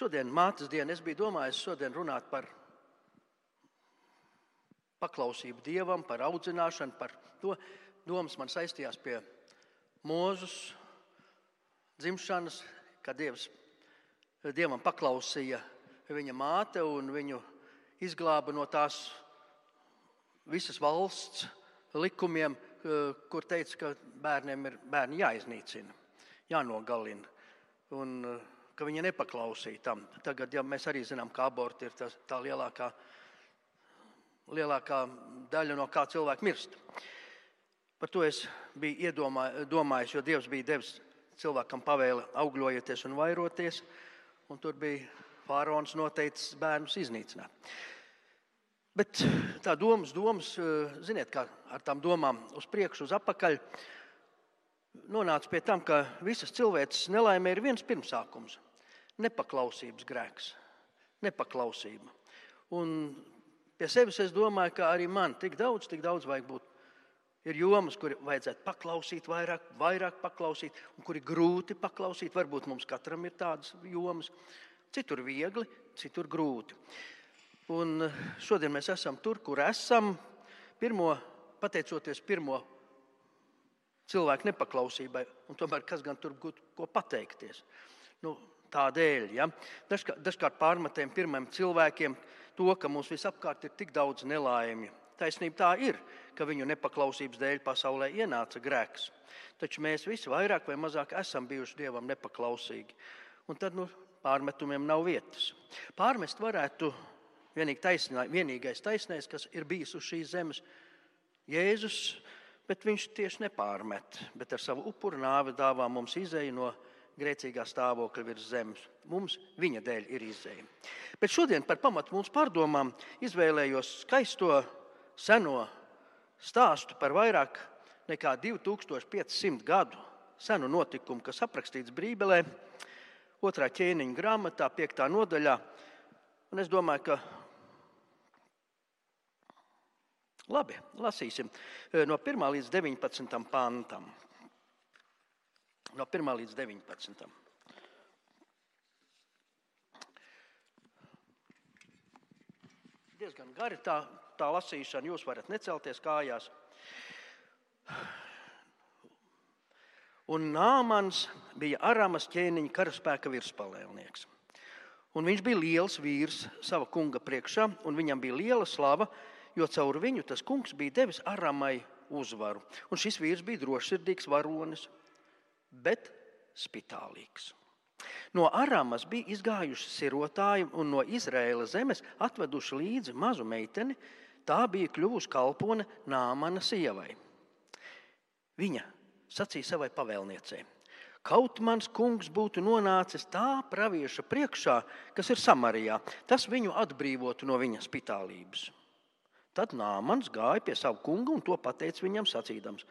šodien, mātes dienu, es biju domājis šodien runāt par paklausību Dievam, par audzināšanu, par to. Domas man saistījās pie Mūzes dzimšanas, kad Dievam paklausīja viņa māte un viņu izglāba no tās visas valsts likumiem, kur teica, ka bērni jāiznīcina, jānogalina un ka viņa nepaklausīja tam. Tagad, ja mēs arī zinām, ka aborti ir tā lielākā daļa, no kā cilvēki mirst. Par to es biju domājis, jo Dievs bija devis cilvēkam pavēli augļojieties un vairoties, un tur bija faraons noteicis bērnus iznīcināt. Bet tā domas, ziniet, kā ar tām domām uz priekšu, uz apakaļ, nonāca pie tam, ka visas cilvēces nelaimē ir viens pirmsākums – nepaklausības grēks, nepaklausība. Un pie sevis es domāju, ka arī man tik daudz vajag būt. Ir jomas, kur vajadzētu paklausīt vairāk paklausīt, un kur ir grūti paklausīt. Varbūt mums katram ir tādas jomas. Citur viegli, citur grūti. Un šodien mēs esam tur, kur esam, pateicoties pirmo cilvēku nepaklausībai, un tomēr kas gan tur būtu ko pateikties. Tādēļ, ja? Dažkārt pārmetējam pirmajiem cilvēkiem to, ka mums visapkārt ir tik daudz nelaimju. Taisnība tā ir, ka viņu nepaklausības dēļ pasaulē ienāca grēks. Taču mēs visi vairāk vai mazāk esam bijuši Dievam nepaklausīgi. Un tad pārmetumiem nav vietas. Pārmest varētu vienīgais taisnais, kas ir bijis uz šīs zemes, Jēzus, bet viņš tieši nepārmet, bet ar savu upuru nāvi dāvā mums izēju no grēcīgā stāvokļa virs zemes. Mums viņa dēļ ir izēja. Bet šodien par pamatu mums pārdomām izvēlējos skaisto seno stāstu par vairāk nekā 2500 gadu senu notikumu, kas aprakstīts Bībelē, 2. ķēniņa grāmatā, 5. nodaļā. Un es domāju, ka labi, lasīsim no 1. līdz 19. pantam. No 1. līdz 19. Diezgan gari tā lasīšana, jūs varat necelties kājās. Un Nāmans bija Aramas ķēniņa karaspēka virspalēlnieks. Un viņš bija liels vīrs sava kunga priekšā, un viņam bija liela slava, jo caur viņu tas kungs bija devis Aramai uzvaru. Un šis vīrs bija drošsirdīgs varonis, bet spitālīgs. No Aramas bija izgājuši sirotāji un no Izraēla zemes atveduši līdzi mazu meiteni. Tā bija kļuvusi kalpone Nāmana sievai. Viņa sacīja savai pavēlniecei: kaut mans kungs būtu nonācis tā pravieša priekšā, kas ir Samarijā, tas viņu atbrīvotu no viņa spitālības. Tad Nāmans gāja pie savu kungu un to pateica viņam sacīdams: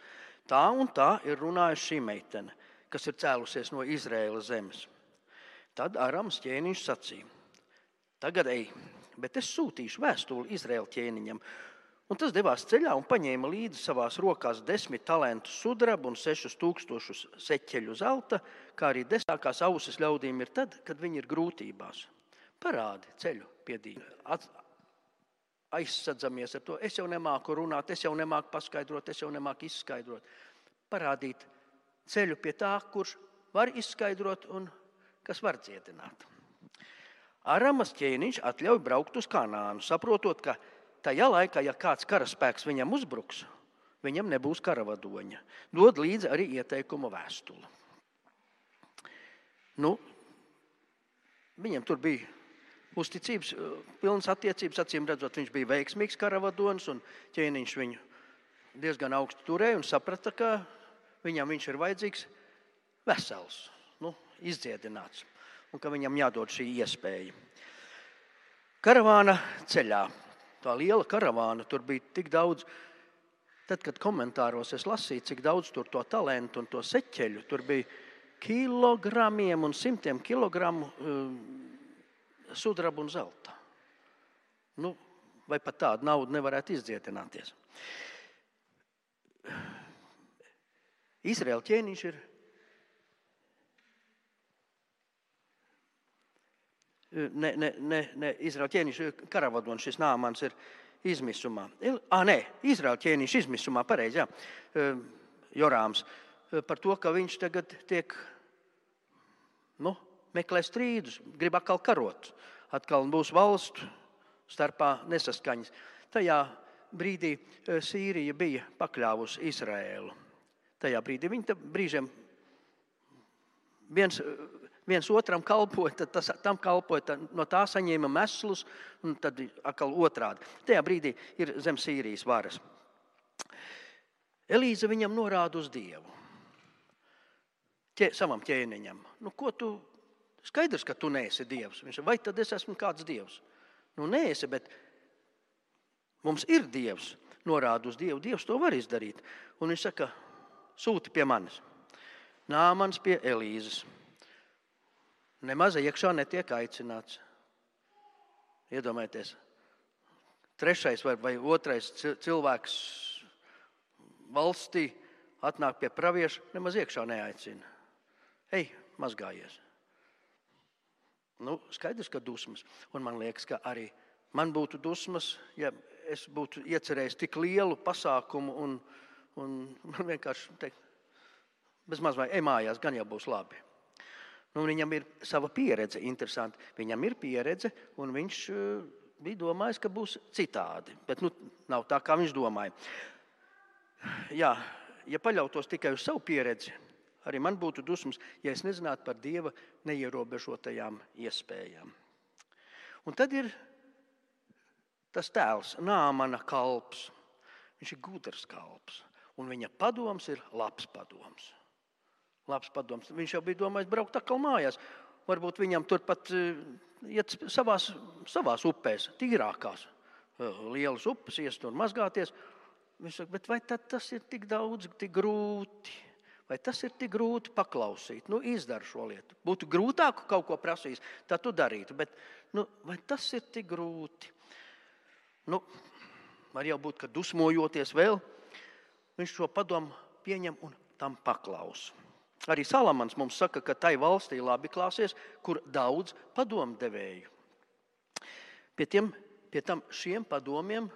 tā un tā ir runājusi šī meitene, kas ir cēlusies no Izraēla zemes. Tad Aramas ķēniņš sacīja: tagad ej, bet es sūtīšu vēstuli Izraēla ķēniņam. Un tas devās ceļā un paņēma līdzi savās rokās 10 talentus sudraba un 6000 seķeļu zelta, kā arī desmitākās ausis ļaudīm ir tad, kad viņi ir grūtībās. Parādi ceļu pie Dieva. Aizsadzamies ar to. Es jau nemāku runāt, es jau nemāku paskaidrot, es jau nemāku izskaidrot. Parādīt ceļu pie tā, kurš var izskaidrot un kas var dziedināt. Aramas ķēniņš atļauj braukt uz Kanānu, saprotot, ka tajā laikā, ja kāds karaspēks viņam uzbruks, viņam nebūs karavadoņa. Dod līdzi arī ieteikuma vēstuli. Viņam tur bija uzticības, pilnas attiecības, acīm redzot, viņš bija veiksmīgs karavadonis, un ķēniņš viņu diezgan augstu turēja un saprata, ka viņam viņš ir vajadzīgs vesels, izdziedināts, un ka viņam jādod šī iespēja. Karavāna ceļā. Tā liela karavāna, tur bija tik daudz. Tad, kad komentāros es lasīju, cik daudz tur to talentu un to seķeļu, tur bija kilogramiem un 100 kilogramu sudraba un zelta. Vai pat tādu naudu nevarētu izdziedināties. Izraēla ķēniņš ir ne Izraēļa ķēniņš karavadonis, šis Nāmans ir izmisumā. Izraēļa ķēniņš izmisumā, pareizi, jā, Jorāms, par to, ka viņš tagad tiek, meklē strīdus, grib atkal karot, atkal būs valstu starpā nesaskaņas. Tajā brīdī Sīrija bija pakļāvusi Izraēlu. Tajā brīdī viņi brīžiem viens otram kalpoja, tad tam kalpoja, no tā saņēma meslus, un tad atkal otrādi. Tajā brīdī ir zem Sīrijas varas. Elīze viņam norāda uz Dievu, savam ķēniņam. Skaidrs, ka tu neesi Dievs. Viņš saka, vai tad es esmu kāds Dievs? Neesi, bet mums ir Dievs, norāda uz Dievu. Dievs to var izdarīt. Un viņš saka, sūti pie manis. Nāmans pie Elīzes. Nemaz iekšā netiek aicināts. Iedomājieties, trešais vai otrais cilvēks valstī atnāk pie pravieša, nemaz iekšā neaicina. Ej, mazgājies. Skaidrs, ka dusmas. Un man liekas, ka arī man būtu dusmas, ja es būtu iecerējis tik lielu pasākumu un man vienkārši teikt, bezmaz vai ej mājās, gan jau būs labi. Viņam ir sava pieredze, interesanti. Viņam ir pieredze, un viņš bija domājis, ka būs citādi. Bet nav tā, kā viņš domāja. Jā, ja paļautos tikai uz savu pieredzi, arī man būtu dusmas, ja es nezinātu par Dieva neierobežotajām iespējām. Un tad ir tas tēls, Nāmana kalps. Viņš ir gudrs kalps, un viņa padoms ir labs padoms. Viņš jau bija domājis braukt atkal mājās. Varbūt viņam turpat iet savās upēs, tīrākās, lielas upes, iest un mazgāties. Viņš saka, bet vai tad tas ir tik daudz, tik grūti? Vai tas ir tik grūti paklausīt? Izdara šo lietu. Būtu grūtāk kaut ko prasījis, tad tu darītu. Bet vai tas ir tik grūti? Var jau būt, ka dusmojoties vēl, viņš šo padomu pieņem un tam paklausa. Arī Salamans mums saka, ka tai valstī labi klāsies, kur daudz padomdevēju. Pie tam šiem padomiem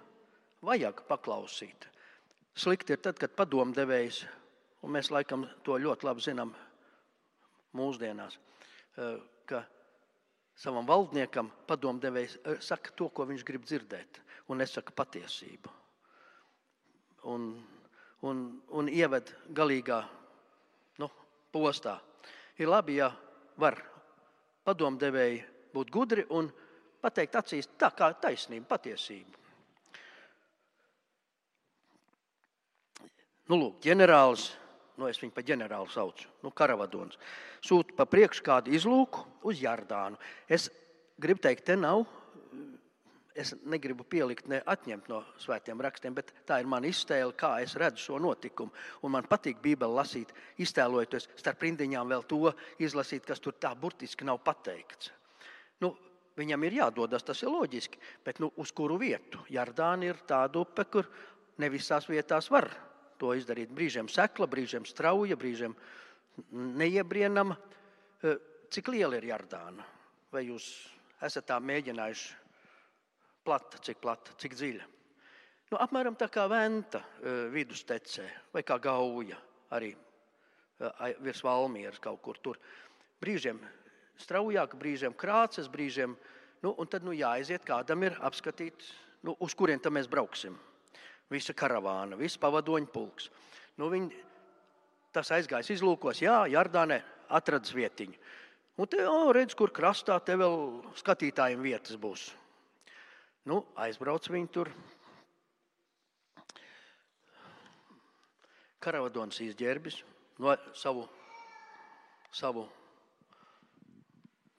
vajag paklausīt. Slikti ir tad, kad padomdevējs, un mēs laikam to ļoti labi zinām mūsdienās, ka savam valdniekam padomdevējs saka to, ko viņš grib dzirdēt, un nesaka patiesību. Un ieved galīgā postā. Ir labi, ja var padomdevēji būt gudri un pateikt acīs tā kā taisnība, patiesība. Ģenerālis, es viņu pa ģenerāli saucu, karavadons, sūta pa priekšu kādu izlūku uz Jardānu. Es gribu teikt, te nav, es negribu pielikt, ne atņemt no svētiem rakstiem, bet tā ir mana iztēle, kā es redzu šo notikumu. Un man patīk Bībeli lasīt, iztēlojoties starp rindiņām vēl to izlasīt, kas tur tā burtiski nav pateikts. Viņam ir jādodas, tas ir loģiski, bet uz kuru vietu? Jardāna ir tāda upe, kur ne visās vietās var to izdarīt. Brīžiem sekla, brīžiem strauja, brīžiem neiebrienama. Cik liela ir Jardāna? Vai jūs esat tā mēģinājuši? Cik plata, cik dziļa. Apmēram tā kā Venta vidustecē, vai kā Gauja, arī virs Valmieras kaut kur tur. Brīžiem straujāk, brīžiem krāces, brīžiem, un tad jāaiziet kādam ir apskatīt, uz kurien tam mēs brauksim. Visa karavāna, viss pavadoņu pulks. Tas aizgājis izlūkos, Jardānē atradas vietiņu. Un te, redz, kur krastā, te vēl skatītājiem vietas būs. Aizbrauc viņi tur. Karavadons izģērbis savu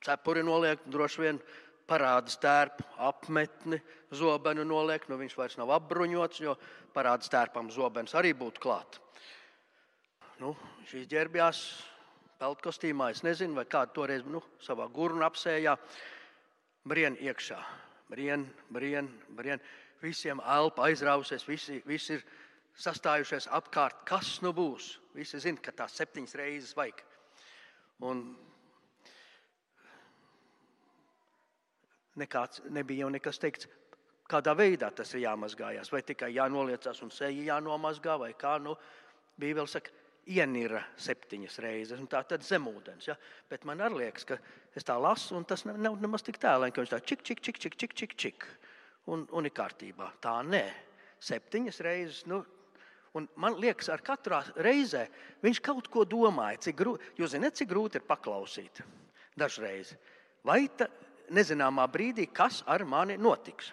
cepuri noliek, droši vien parāda stērpu, apmetni, zobenu noliek. Viņš vairs nav apbruņots, jo parāda stērpam zobens arī būtu klāt. Viņš izģērbjās peltkostīmā, es nezinu, vai kādu toreiz savā gurnu apsējā, brien iekšā. Brien. Visiem elpa aizrausies, visi ir sastājušies apkārt. Kas būs? Visi zina, ka tās 7 reizes vajag. Un nebija jau nekas teikts, kādā veidā tas ir jāmazgājās. Vai tikai jānoliecās un seja jānomazgā, vai kā. Bībele saka, ienira 7 reizes, un tā tad zemūdens. Ja? Bet man arī liekas, ka es tā lasu, un tas nav nemaz tik tēlēn, ka viņš tā čik, un ir kārtībā. Tā nē, 7 reizes. Un man liekas, ar katrā reizē viņš kaut ko domāja. Jūs zināt, cik grūti ir paklausīt dažreiz. Vai nezināmā brīdī, kas ar mani notiks?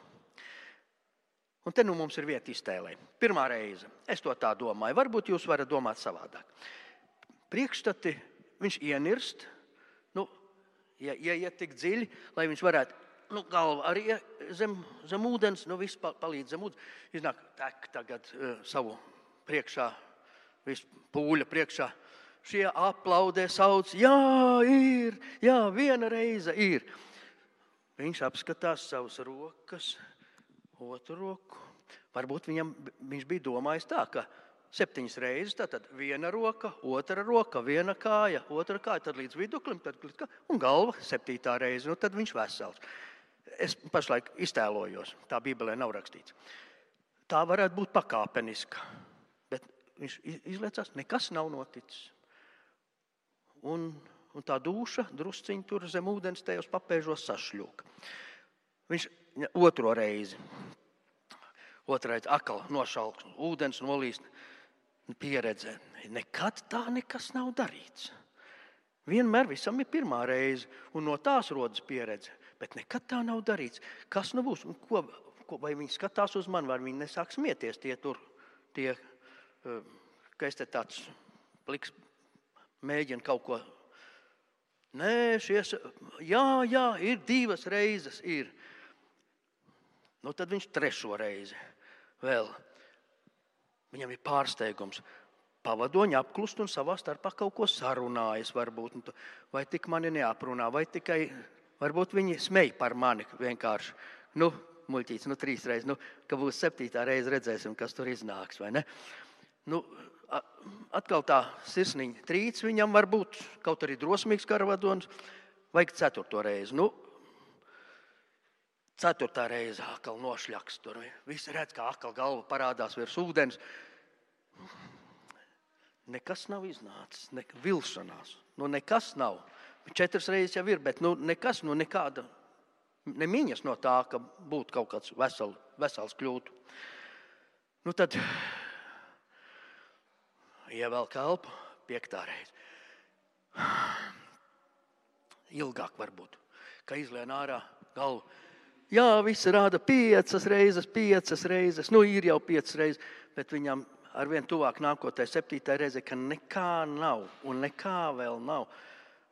Un te mums ir vieta iztēlē. Pirmā reize. Es to tā domāju. Varbūt jūs varat domāt savādāk. Priekšstati viņš ienirst, ieiet tik dziļi, lai viņš varētu, galva arī zem ūdens, viss palīdz zem ūdens. Iznāk tek tagad savu priekšā, visu pūļa priekšā. Šie aplaudē, sauc, jā, ir, jā, viena reize ir. Viņš apskatās savas rokas, otru roku. Varbūt viņš bija domājis tā, ka 7 reizes, tad viena roka, otra roka, viena kāja, otra kāja, tad līdz viduklim, un galva 7. reize, tad viņš vesels. Es pašlaik iztēlojos, tā Bībelē nav rakstīts. Tā varētu būt pakāpeniska, bet viņš izliecās, nekas nav noticis. Un tā dūša drusciņi tur zem ūdens tajos papēžos sašļūka. Viņš otro reizi atkal nošalks, ūdens nolīst, pieredze. Nekad tā nekas nav darīts. Vienmēr visam ir pirmā reize, un no tās rodas pieredze, bet nekad tā nav darīts. Kas būs? Vai viņi skatās uz mani, vai viņi nesāk smieties ka es te tāds pliks mēģinu kaut ko. Nē, jā, ir 2 reizes, ir. Tad viņš 3. reizi vēl. Viņam ir pārsteigums. Pavadoņi apklust un savā starpā kaut ko sarunājas varbūt. Vai tik mani neaprunā, vai tikai varbūt viņi smej par mani vienkārši. Muļķīts, 3 reizes, ka būs 7. reize, redzēsim, kas tur iznāks, vai ne? Atkal tā sirsniņa trīc viņam var būt, kaut arī drosmīgs karavadons, vajag 4. reizi. 4. reize atkal nošļaks tur. Visi redz, kā atkal galva parādās virs ūdens. Nekas nav iznācis, vilšanās. Nekas nav. 4 reizes jau ir, bet nekas, nekāda, nemiņas no tā, ka būtu kaut kāds vesels kļūtu. Tad ievelk elpu, 5. reize. Ilgāk varbūt, ka izlien ārā galvu. Jā, visi rāda 5 reizes, ir jau 5 reizes, bet viņam arvien tuvāk nākotai 7. reize, ka nekā nav un nekā vēl nav.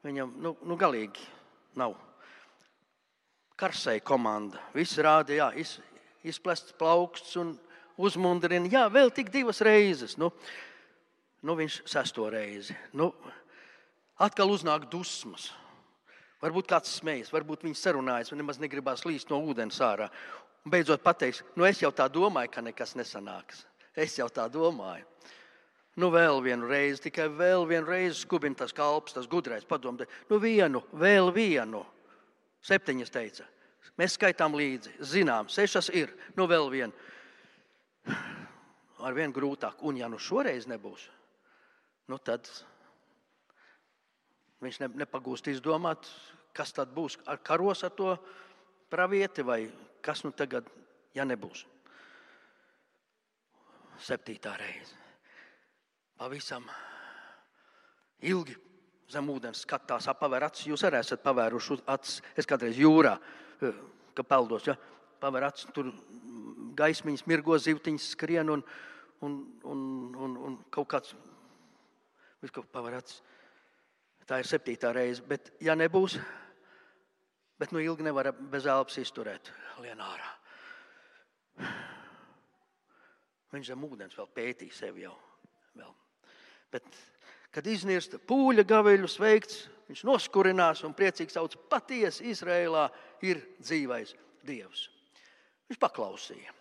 Viņam, galīgi nav. Karsēja komanda, visi rāda, jā, izplests plauksts un uzmundrina, jā, vēl tik 2 reizes. Viņš 6. reizi. Atkal uznāk dusmas. Varbūt kāds smējas, varbūt viņi sarunājas un nemaz negribās līst no ūdens ārā. Un beidzot pateiks, es jau tā domāju, ka nekas nesanāks. Es jau tā domāju. Vēl vienu reizi, tikai vēl vienu reizi skubina tas kalps, tas gudrais padomā. Vēl vienu. 7 teica. Mēs skaitām līdzi, zinām, 6 ir, vēl vienu. Ar vien grūtāk. Un ja šoreiz nebūs, tad viņš nepagūst izdomāt, kas tad būs ar karos ar to pravieti vai kas tagad, ja nebūs. 7. reize. Pavisam ilgi zem ūdens skatās, pavēr acis. Jūs arī esat pavēruši acis. Es kādreiz jūrā, ka peldos, ja, pavēr acis, tur gaismiņas mirgo, zivtiņas skrien un kaut kāds, viss kaut pavēr acis. Tā ir 7. reize, bet ja nebūs, bet ilgi nevar bez elpas izturēt, lien ārā. Viņš zem ūdens vēl pētīja sevi jau. Vēl. Bet, kad iznirsta pūļa gaveļu sveikts, viņš noskurinās un priecīgi sauc, patiesi Izrēlā ir dzīvais Dievs. Viņš paklausīja.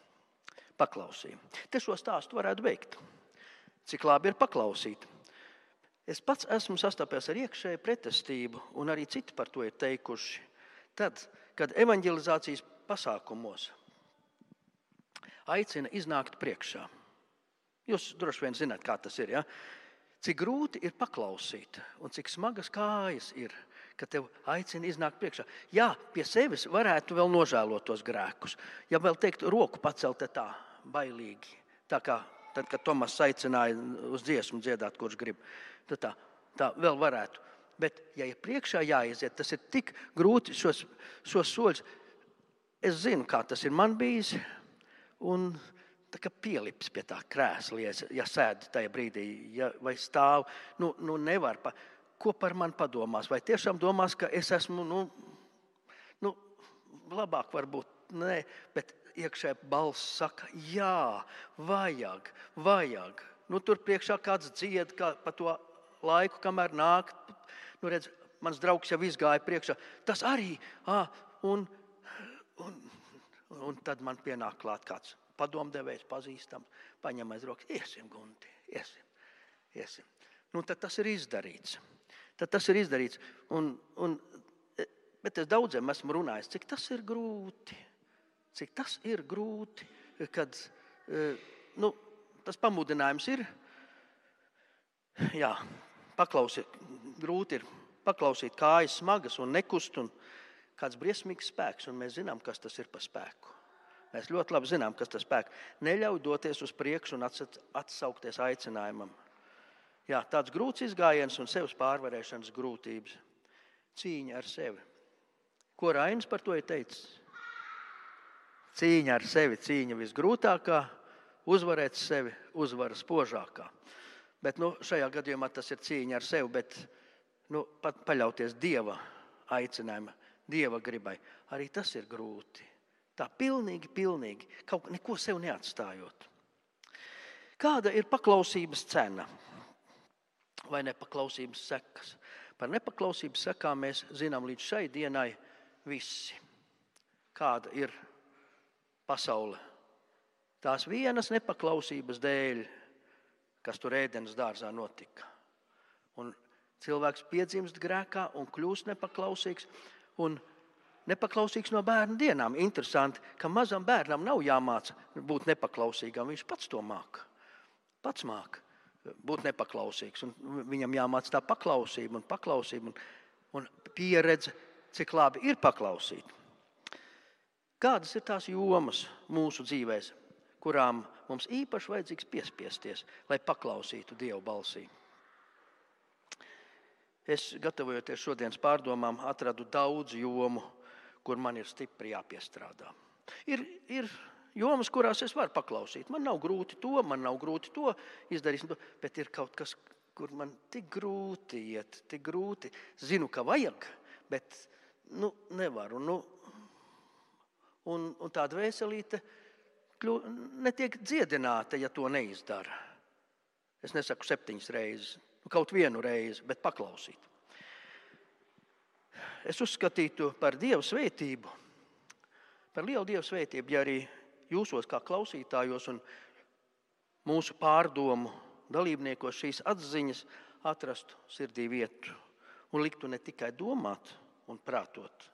Te šo stāstu varētu beigt. Cik labi ir paklausīt. Es pats esmu sastapies ar iekšēju pretestību, un arī citi par to ir teikuši. Tad, kad evanģelizācijas pasākumos aicina iznākt priekšā, jūs droši vien zināt, kā tas ir, ja? Cik grūti ir paklausīt un cik smagas kājas ir, ka tev aicina iznākt priekšā. Jā, pie sevis varētu vēl nožēlot tos grēkus. Ja vēl teikt, roku pacelt tā bailīgi, tā kā tad, kad Tomas aicināja uz dziesmu dziedāt, kurš grib, tad tā vēl varētu. Bet, ja ir priekšā jāiziet, tas ir tik grūti šos soļus. Es zinu, kā tas ir man bijis, un tā kā pielips pie tā krēsla, ja sēd tajā brīdī, vai stāv, nevar. Ko par mani padomās? Vai tiešām domās, ka es esmu, labāk varbūt, nē, bet iekšē balss saka, jā, vajag. Tur priekšā kāds dzied pa to laiku, kamēr nāk. Redz, mans draugs jau izgāja priekšā. Tas arī, un tad man pienāk klāt kāds padomdevējs, pazīstams, paņem aiz rokas. Iesim, Gunti, iesim. Tad tas ir izdarīts. Bet es daudziem esmu runājis, cik tas ir grūti. Kad tas pamudinājums ir, jā, grūti ir paklausīt kājas smagas un nekust, un kāds briesmīgs spēks, un mēs zinām, kas tas ir par spēku. Mēs ļoti labi zinām, kas tas spēks. Neļauj doties uz priekšu un atsaukties aicinājumam. Jā, tāds grūts izgājiens un sevis pārvarēšanas grūtības. Cīņa ar sevi. Ko Rainis par to ir teicis? Cīņa ar sevi, cīņa visgrūtākā, uzvarēt sevi, uzvara spožākā. Bet šajā gadījumā tas ir cīņa ar sevi, bet pat paļauties Dieva aicinājuma, Dieva gribai. Arī tas ir grūti. Tā pilnīgi, kaut neko sev neatstājot. Kāda ir paklausības cena vai nepaklausības sekas? Par nepaklausības sekām mēs zinām līdz šai dienai visi. Kāda ir pasaule? Tās vienas nepaklausības dēļ, kas tur Ēdenes dārzā notika. Un cilvēks piedzimst grēkā un kļūst nepaklausīgs un nepaklausīgs no bērna dienām. Interesanti, ka mazam bērnam nav jāmāca būt nepaklausīgam. Viņš pats to māca. Pats māca būt nepaklausīgs. Un viņam jāmāca tā paklausība un pieredze, cik labi ir paklausīt. Kādas ir tās jomas mūsu dzīvēs, kurām mums īpaši vajadzīgs piespiesties, lai paklausītu Dieva balsī? Es, gatavojoties šodienas pārdomām, atradu daudz jomu, kur man ir stipri jāpiestrādā. Ir jomas, kurās es varu paklausīt. Man nav grūti to izdarīt, bet ir kaut kas, kur man tik grūti iet, tik grūti. Zinu, ka vajag, bet nevaru. Un tā dvēselīte netiek dziedināta, ja to neizdara. Es nesaku 7 reizes, kaut 1 reizi, bet paklausīt. Es uzskatītu par Dieva svētību, par lielu Dieva svētību, ja arī jūsos kā klausītājos un mūsu pārdomu dalībniekos šīs atziņas atrastu sirdī vietu un liktu ne tikai domāt un prātot.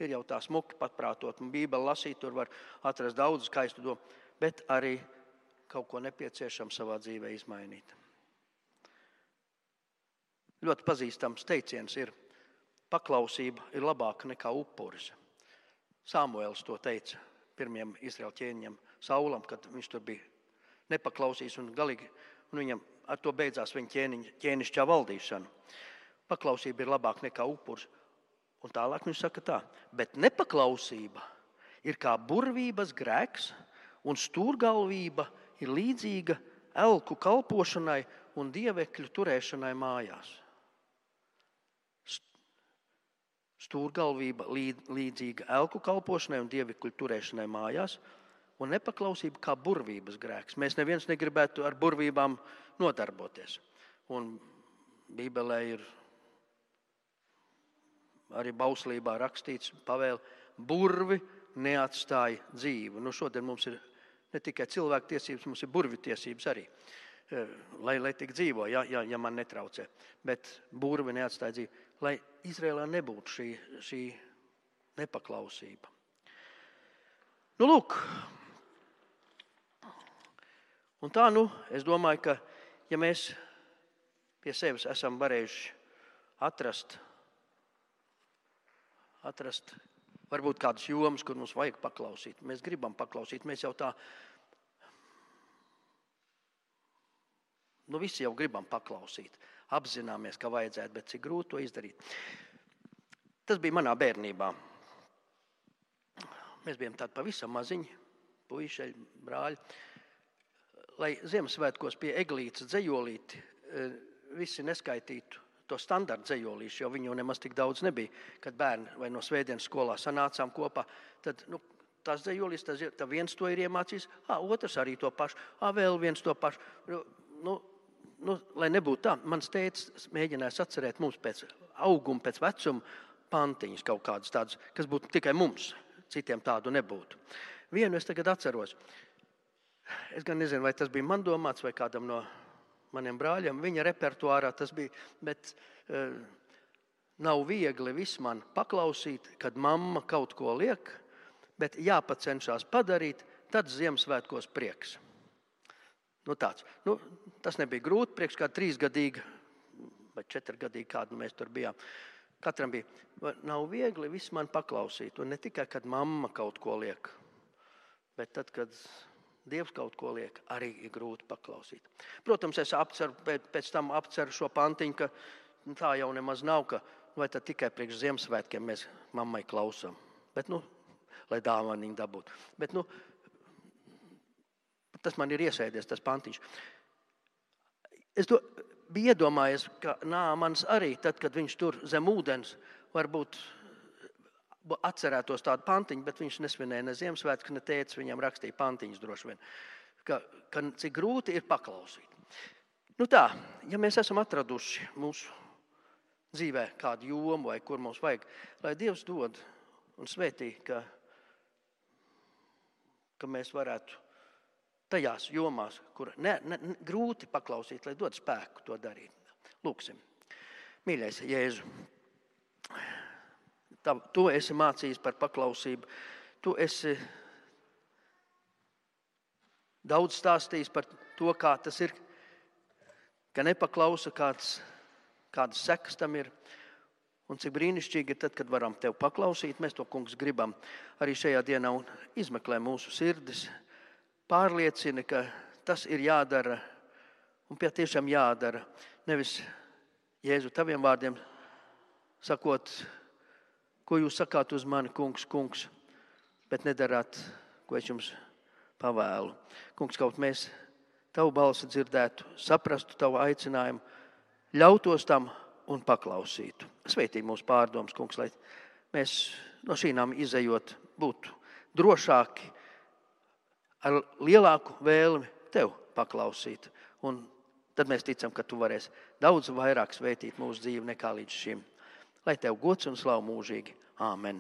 Ir jau tā smuki patprātot, un Bībeli lasīt, tur var atrast daudz skaistu domu, bet arī kaut ko nepieciešams savā dzīvē izmainīt. Ļoti pazīstams teiciens ir: paklausība ir labāka nekā upuris. Samuēls to teica pirmajam Izraēļa ķēniņam Saulam, kad viņš tur bija nepaklausījis un galīgi, un viņam ar to beidzās viņa ķēnišķā valdīšana. Paklausība ir labāka nekā upuris. Un tālāk viņš saka tā: bet nepaklausība ir kā burvības grēks, un stūrgalvība ir līdzīga elku kalpošanai un dievekļu turēšanai mājās. Stūrgalvība līdzīga elku kalpošanai un dievekļu turēšanai mājās, un nepaklausība kā burvības grēks. Mēs neviens negribētu ar burvībām nodarboties. Un Bībelē ir arī bauslībā rakstīts pavēle: burvi neatstāja dzīvu. Šodien mums ir ne tikai cilvēku tiesības, mums ir burvi tiesības arī, lai tik dzīvo, ja man netraucē. Bet burvi neatstāja dzīvu. Lai Izrēlā nebūtu šī nepaklausība. Nu, lūk. Un tā, es domāju, ka ja mēs pie sevis esam varējuši atrast varbūt kādas jomas, kur mums vajag paklausīt. Mēs gribam paklausīt, mēs jau tā, visi jau gribam paklausīt. Apzināmies, ka vajadzētu, bet cik grūti to izdarīt. Tas bija manā bērnībā. Mēs bijām tādi pavisam maziņi, puiši, brāļi. Lai Ziemassvētkos pie eglītes dzejolīti visi neskaitītu to standarta dzejolīšu, jo viņu jau nemaz tik daudz nebija. Kad bērni vai no svētdienas skolā sanācām kopā, tad tās dzejolīs, tad viens to ir iemācījis, otrs arī to pašu, vēl viens to pašu. Lai nebūtu tā, mans tētis mēģinājis atcerēt mums pēc auguma, pēc vecuma pantiņas kaut kādas tādas, kas būtu tikai mums, citiem tādu nebūtu. Vienu es tagad atceros. Es gan nezinu, vai tas bija man domāts vai kādam no maniem brāļiem. Viņa repertuārā tas bija, bet nav viegli viss man paklausīt, kad mamma kaut ko liek, bet jāpacenšās padarīt, tad Ziemassvētkos prieks. Tāds. Tas nebija grūti, priekš kā 3-gadīga vai 4-gadīga, kādu mēs tur bijām. Katram bija, nav viegli viss man paklausīt, un ne tikai, kad mamma kaut ko liek, bet tad, kad Dievs kaut ko liek, arī ir grūti paklausīt. Protams, es pēc tam apceru šo pantiņu, ka tā jau nemaz nav, ka vai tad tikai priekš Ziemassvētkiem mēs mammai klausām. Bet, lai dāvaniņu dabūtu. Bet, tas man ir iesēdies, tas pantiņš. Es biju iedomājies, ka Nāmans arī, tad, kad viņš tur zem ūdens, varbūt atcerētos tādu pantiņu, bet viņš nesvinēja ne Ziemassvētkus, ne tētis viņam rakstīja pantiņus droši vien, ka cik grūti ir paklausīt. Tā, ja mēs esam atraduši mūsu dzīvē kādu jomu vai kur mums vajag, lai Dievs dod un svētī, ka mēs varētu tajās jomās, kur grūti paklausīt, lai dod spēku to darīt. Lūksim. Mīļais Jēzu, tu esi mācījis par paklausību. Tu esi daudz stāstījis par to, kā tas ir, ka nepaklausa, kādas sekas tam ir. Un cik brīnišķīgi ir tad, kad varam tev paklausīt. Mēs to, kungs, gribam arī šajā dienā un izmeklē mūsu sirdis. Pārliecina, ka tas ir jādara un tiešām jādara. Nevis Jēzu taviem vārdiem sakot, ko jūs sakāt uz mani, kungs, bet nedarāt, ko es jums pavēlu. Kungs, kaut mēs tavu balsi dzirdētu, saprastu tavu aicinājumu, ļautos tam un paklausītu. Svētī mūsu pārdomas, kungs, lai mēs no šīm izejot būtu drošāki, ar lielāku vēlmi tev paklausīt. Un tad mēs ticam, ka tu varēsi daudz vairāk svētīt mūsu dzīvi nekā līdz šim. Lai tev gods un slavu mūžīgi. Āmen.